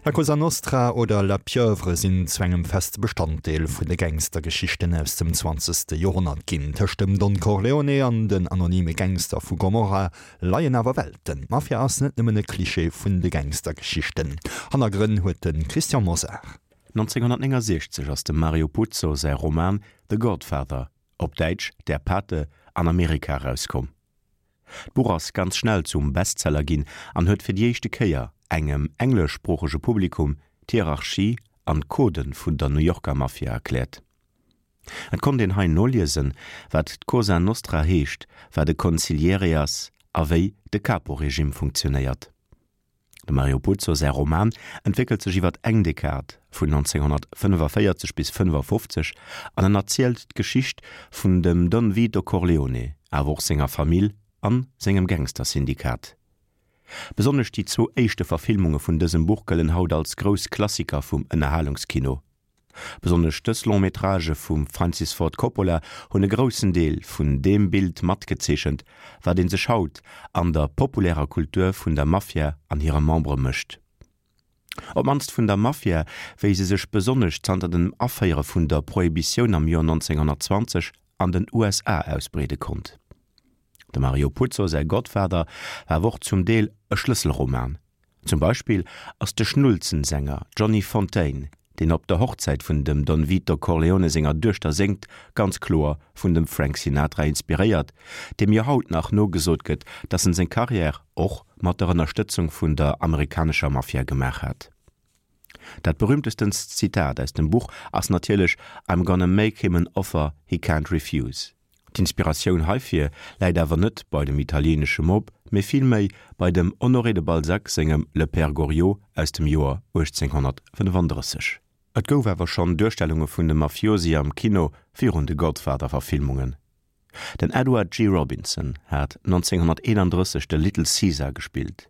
La Cosa Nostra oder La Pieuvre sinn zu engem feste Bestanddeel vun de Gangstergeschichten aus dem zwanzegste Joerhonnert ginn. Tëscht dem Don Corleone an den anonyme Gangster vu Gomorrha leien awer Welten. D'Mafia ass net nëmmen e Klischee vun de Gangstergeschichten. Hannergrënn huet de Christian Mosar. 1969 ass dem Mario Puzo säi Roman The Godfather, op Däitsch Der Pate, an Amerika erauskomm. D'Buch ass ganz schnell zum Bestseller ginn an huet fir déi éischte Kéier engem engleschsproochege Publikum d'Hierarchie an d'Codë vun der New Yorker Mafia erkläert. Et konnt een hei noliesen, wat d'Cosa Nostra heescht, wat e Consigliere ass a wéi de Capo-Regime funktionéiert. Dem Mario Puzo säi Roman entwéckelt sech iwwer eng Dekad, vun 1945 bis 55, an en erzielt d'Geschicht vun dem Don Vito Corleone, awer och senger Famill an sengem Gangstersyndikat. Besonnesch déi zwou éischte Verfilmunge vun dësem Buch gëllen haut als grouss Klassiker vum Ënnerhalungskino. Besonnesch dës Long-métragë vum Francis Ford Coppola hunn e groussen Deel vun deem Bild matgezeechent, wat ee sech haut an der populärer Kultur vun der Mafia an hire Membere mécht. Op d'mannst vun der Mafia, wéi se sech besonnesch zanter dem Aféiere vun der Prohibitioun am Joer 1920 an den USA ausbreede konnt. Dem Mario Puzo säi Godfather war awer och zum Deel e Schlësselroman. Zum Beispill ass de Schnulzensänger Johnny Fontane, deen op der Hochzäit vun dem Don Vito Corleone senger Duechter séngt, ganz kloer vun dem Frank Sinatra inspiréiert, deem jo haut nach nogesot gëtt, datt en seng Karriär och mat der Ënnerstëtzung vun der amerikanescher Mafia gemaach hat. Dat berühmtestenst Zitat aus dem Buch ass natierlech I'm gonna make him an offer he can't refuse. D'Inspiratioun heifir läit awer net bei dem italieenesche Mob, mee villméi bei dem Honoré de Balzac sengem Le Père Goriot aus dem Joer 1835. Et gouf awer schonn Duerstellunge vun de Mafiosi am Kino virun de Godfather-Verfilmungen. Den Edward G. Robinson hat 1931 de Little Caesar gespillt,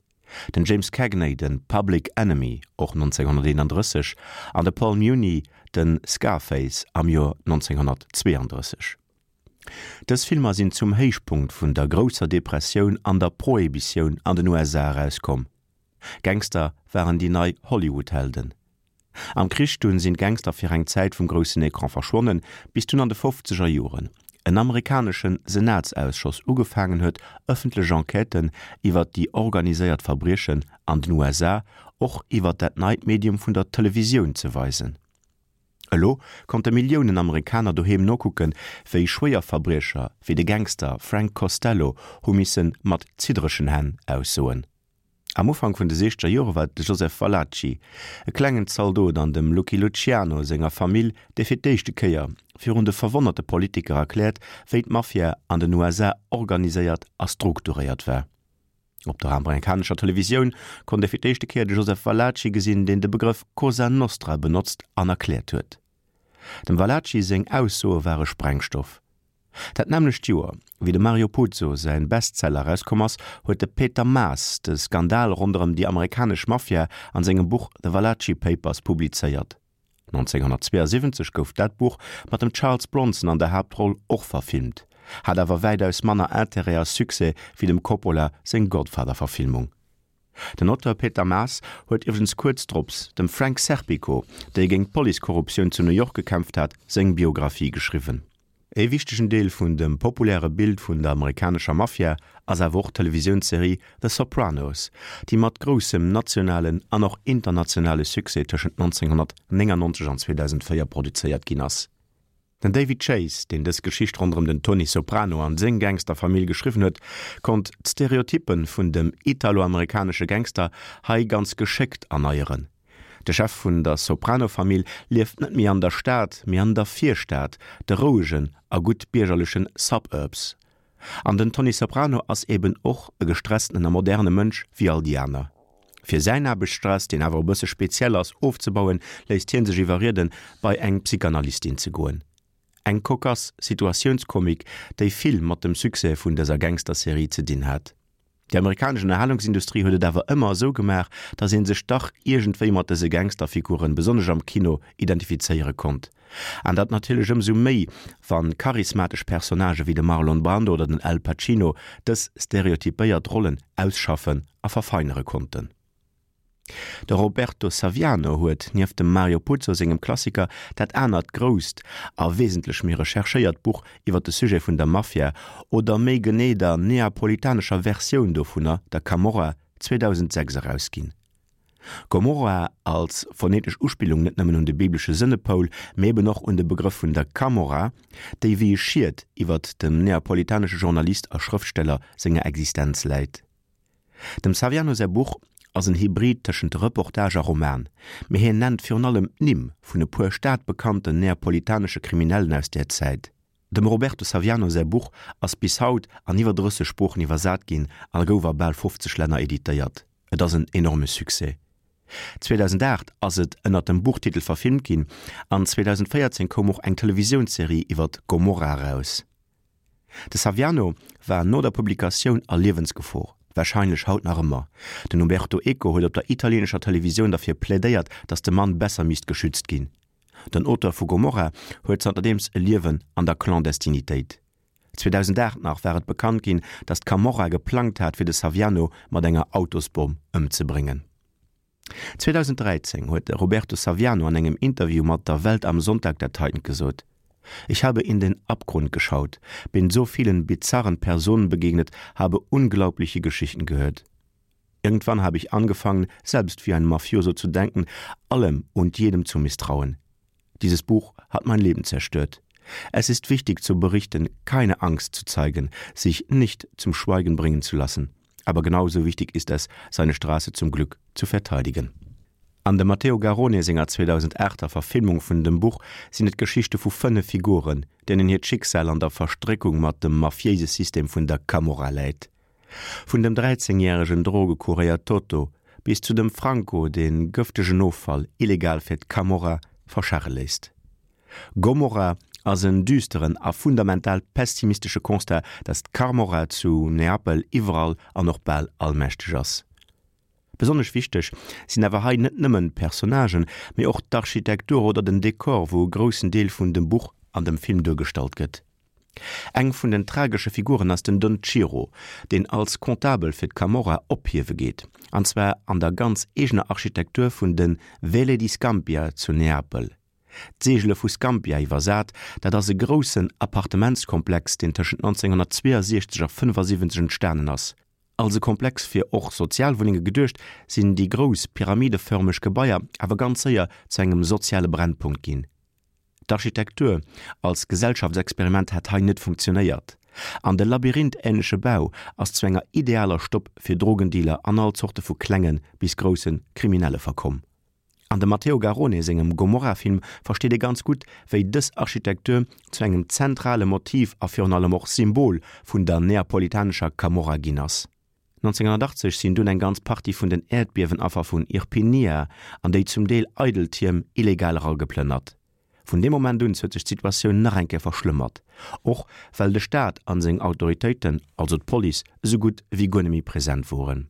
den James Cagney de Public Enemy, och 1931, an de Paul Muni de Scarface am Joer 1932. Dës Filmer sinn zum Héichpunkt vun der Grousser Depressioun an der Prohibitioun an den USA erauskomm. Gangster waren déi nei Hollywood-Helden. Am Krich dunn sinn d'Gangster fir eng Zäit vum groussen Ecran verschwonnen, bis dunn an de fofzeger Joren en amerikanesche Senatsausschoss ugefaangen huet ëffentlech Enquêten iwwer déi organiséiert Verbriechen an den USA och iwwer dat neit Medium vun der Televisioun ze weisen. Elo konnte Milliounen Amerikaner doheem nokucken, wéi Schwéierverbriecher wéi de Gangster Frank Costello hu misse mat ziddregen Hänn aussoen. Am Ufank vun de siechzeger Jore war et de Joseph Valachi, e klengen Zaldot an dem Lucky Luciano senger Famill, dee fir d'éischte Kéier virun de verwonnerte Politiker erkläert, wéi d'Mafia an den USA organiséiert a strukturéiert war. Op der amerikanescher Televisioun konnt ee fir d'éischte Kéier de Joseph Valachi gesinn, deen de Begrëff Cosa Nostra benotzt an erkläert huet. Dem Valachi seng Aussoe ware Sprengstoff. Dat nämmlecht Joer, wéi dem Mario Puzo säin Bestseller erauskomm ass, huet de Peter Maas de Skandal ronderëm déi amerikanesch Mafia an sengem Buch The Valachi Papers publizéiert. 1972 gouf dat Buch mat dem Charles Bronson an der Haaptroll och verfilmt, hat awer wäitaus manner Interêt a Succès wéi dem Coppola seng Godfather-Verfilmung. Den Auteur Peter Maas huet iwwregens kuerz drops dem Frank Serpico, dee géint d'Policekorruptioun zu New York gekämpft hat, seng Biographie geschriwwen. Ee wichtegen Deel vun dem populäre Bild vun der amerikanescher Mafia ass awer och d'Televisiounsserie The Sopranos, déi mat groussem nationalen an och internationale Succès tëschent 1999 an 2004 produzéiert ginn ass. Den David Chase, deen dës Geschicht ronderëm den Tony Soprano an seng Gangsterfamill geschriwwen huet, konnt d'Stereotyppe vun dem italo-amerikanesche Gangster hei ganz geschéckt erneieren. De Chef vun der Soprano-Famill lieft net méi an der Stad, mee an der Virstad, de rouegen a gutt biergerlechen Suburbs. An den Tony Soprano ass eben och e gestresstenen a moderne Mënsch wéi all déi aner. Fir säin Aarbechtsstress, deen awer e bësse speziell ass, ofzebauen, léisst hie sech iwwerrieden, bei eng Psychanalystin ze goen. Eng cocasse Situatiounskomik, déi vill mat dem Succès vun dëser Gangsterserie ze dinn hat. Déi amerikanesch Ënnerhalungsindustrie huet et awer ëmmer esou gemaach, datt ee sech dach iergendwéi mat dëse Gangsterfiguren, besonnesch am Kino, identifizéiere konnt. An dat natierlech ëmsou méi, wa charismatesch Personnagë wéi de Marlon Brando oder den Al Pacino dës stereotypéiert Rollen ausschaffen a verfeinere konnten. De Roberto Saviano huet, nieft dem Mario Puzo sengem Klassiker, dat anert grousst a wesentlech méi recherchéiert Buch iwwer de Sujet vun der Mafia, oder méi genee der neapolitanescher Versioun dovunner, der Camorra, 2006 erausginn. Gomorra als phonetesch Uspillung net nëmmen un de biblesche Sënnepoul, mee eben och un de Begrëff vun der Camorra, déi wéi e Schiet iwwert dem neapolitanesche Journalist a Schrëftsteller senger Existenz läit. Dem Saviano säi Buch ass en Hybrid tëschent Reportage a Roman, mee hien nennt virun allem d'Nimm vun e puer stadbekannten neapolitanesche Kriminellen aus där Zäit. Dem Roberto Saviano säi Buch ass bis haut an iwwer 30 Sproochen iwwersat ginn a gouf a bal 50 Länner editéiert. Et ass en enorme Succès. 2008 ass et ënner dem Buchtitel verfilmt ginn an 2014 koum och eng Televisiounsserie iwwer Gomorra eraus. De Saviano war no der Publikatioun a Liewensgefor, warscheinlech haut nach ëmmer. Den Umberto Eco huet op der italieenescher Televisioun derfir plädéiert, datt de Mann besser misst geschützt ginn. Den Auteur vu Gomorra huet zanterdeems e Liewen an der Clandestinitéit. 2008 nach war et bekannt ginn, datt d'Camorra geplangt hat fir de Saviano mat enger Autosbomm ëmzebréngen. 2013 huet de Roberto Saviano an engem Interview mat der Welt am Sonntag dat heitent gesot: Ich habe in den Abgrund geschaut, bin so vielen bizarren Personen begegnet, habe unglaubliche Geschichten gehört. Irgendwann habe ich angefangen, selbst wie ein Mafioso zu denken, allem und jedem zu misstrauen. Dieses Buch hat mein Leben zerstört. Es ist wichtig zu berichten, keine Angst zu zeigen, sich nicht zum Schweigen bringen zu lassen. Aber genauso wichtig ist es, seine Straße zum Glück zu verteidigen. An dem Matteo Garrone senger 2008er Verfilmung vun dem Buch sinn et d'Geschichte vu 5 Figuren, deenen hiert Schicksal an der Verstréckung mat dem mafiéise System vun der Camorra läit. Vun dem 13 järegen Drogekuréier Toto bis zu dem Franco, dee gëftegen Offall illegal fir d'Camorra verscharre léisst. Gomorra ass en düsteren a fundamental pessimistesche Constat, datt d'Carmorra zu Neapel iwwerall an och bal allmächteg ass. Besonnesch wichteg sinn awer hei net nëmmen d'Personnagen, mee och d'Architektur oder den Dekor, wou e groussen Deel vun dem Buch an dem Film duergestallt gëtt. Eng vun den tragesche Figuren ass den Don Ciro, deen als Comptabel fir d'Camorra ophiewe geet, an zwar an der ganz eegener Architektur vun de Vele di Scampia zu Neapel. D'Seegele vu Scampia iwwersat, dat ass e groussen Appartementskomplex, deen tëschent 1962 a 75 entstanen ass. Als e Komplex fir och Sozialwunnenge geduecht, sinn déi grouss pyramidefërmeg Gebaier awer ganz séier zu engem soziale Brennpunkt ginn. D'Architektur als Gesellschaftsexperiment hat hei net funktionéiert, an de labyrinthähnleche Bau ass zu enger idealer Stopp fir Drogendealer an all Zorte vu klenge bis grousse Kriminelle verkomm. An dem Matteo Garrone sengem Gomorra-Film versteet ee ganz gutt, wéi dës Architektur zu engem zentrale Motiv a virun allem och Symbol vun der neapolitanescher Camorra ginn ass. 1980 sinn dunn eng ganz Partie vun den Äerdbiewenaffer vun Irpinia an déi zum Deel eidel Tierm illegal erageplënnert. Vun deem Moment un huet sech d'Situatioun nach eng Kéier verschlëmmert, och well de Staat an seng Autoritéiten, also d'Police, esou gutt wéi guer net méi present woren.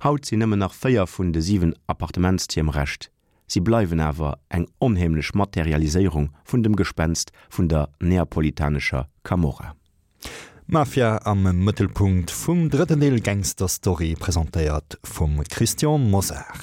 Haut sinn nëmmen nach 4 vun de 7 Appartementstierm Rescht. Si bleiwen awer eng onheemlech Materialiséierung vun dem Gespenst vun der neapolitanescher Camorra. Mafia am Mëttelpunkt vum drëtten Deel Gangster Story, presentéiert vum Christian Mosar.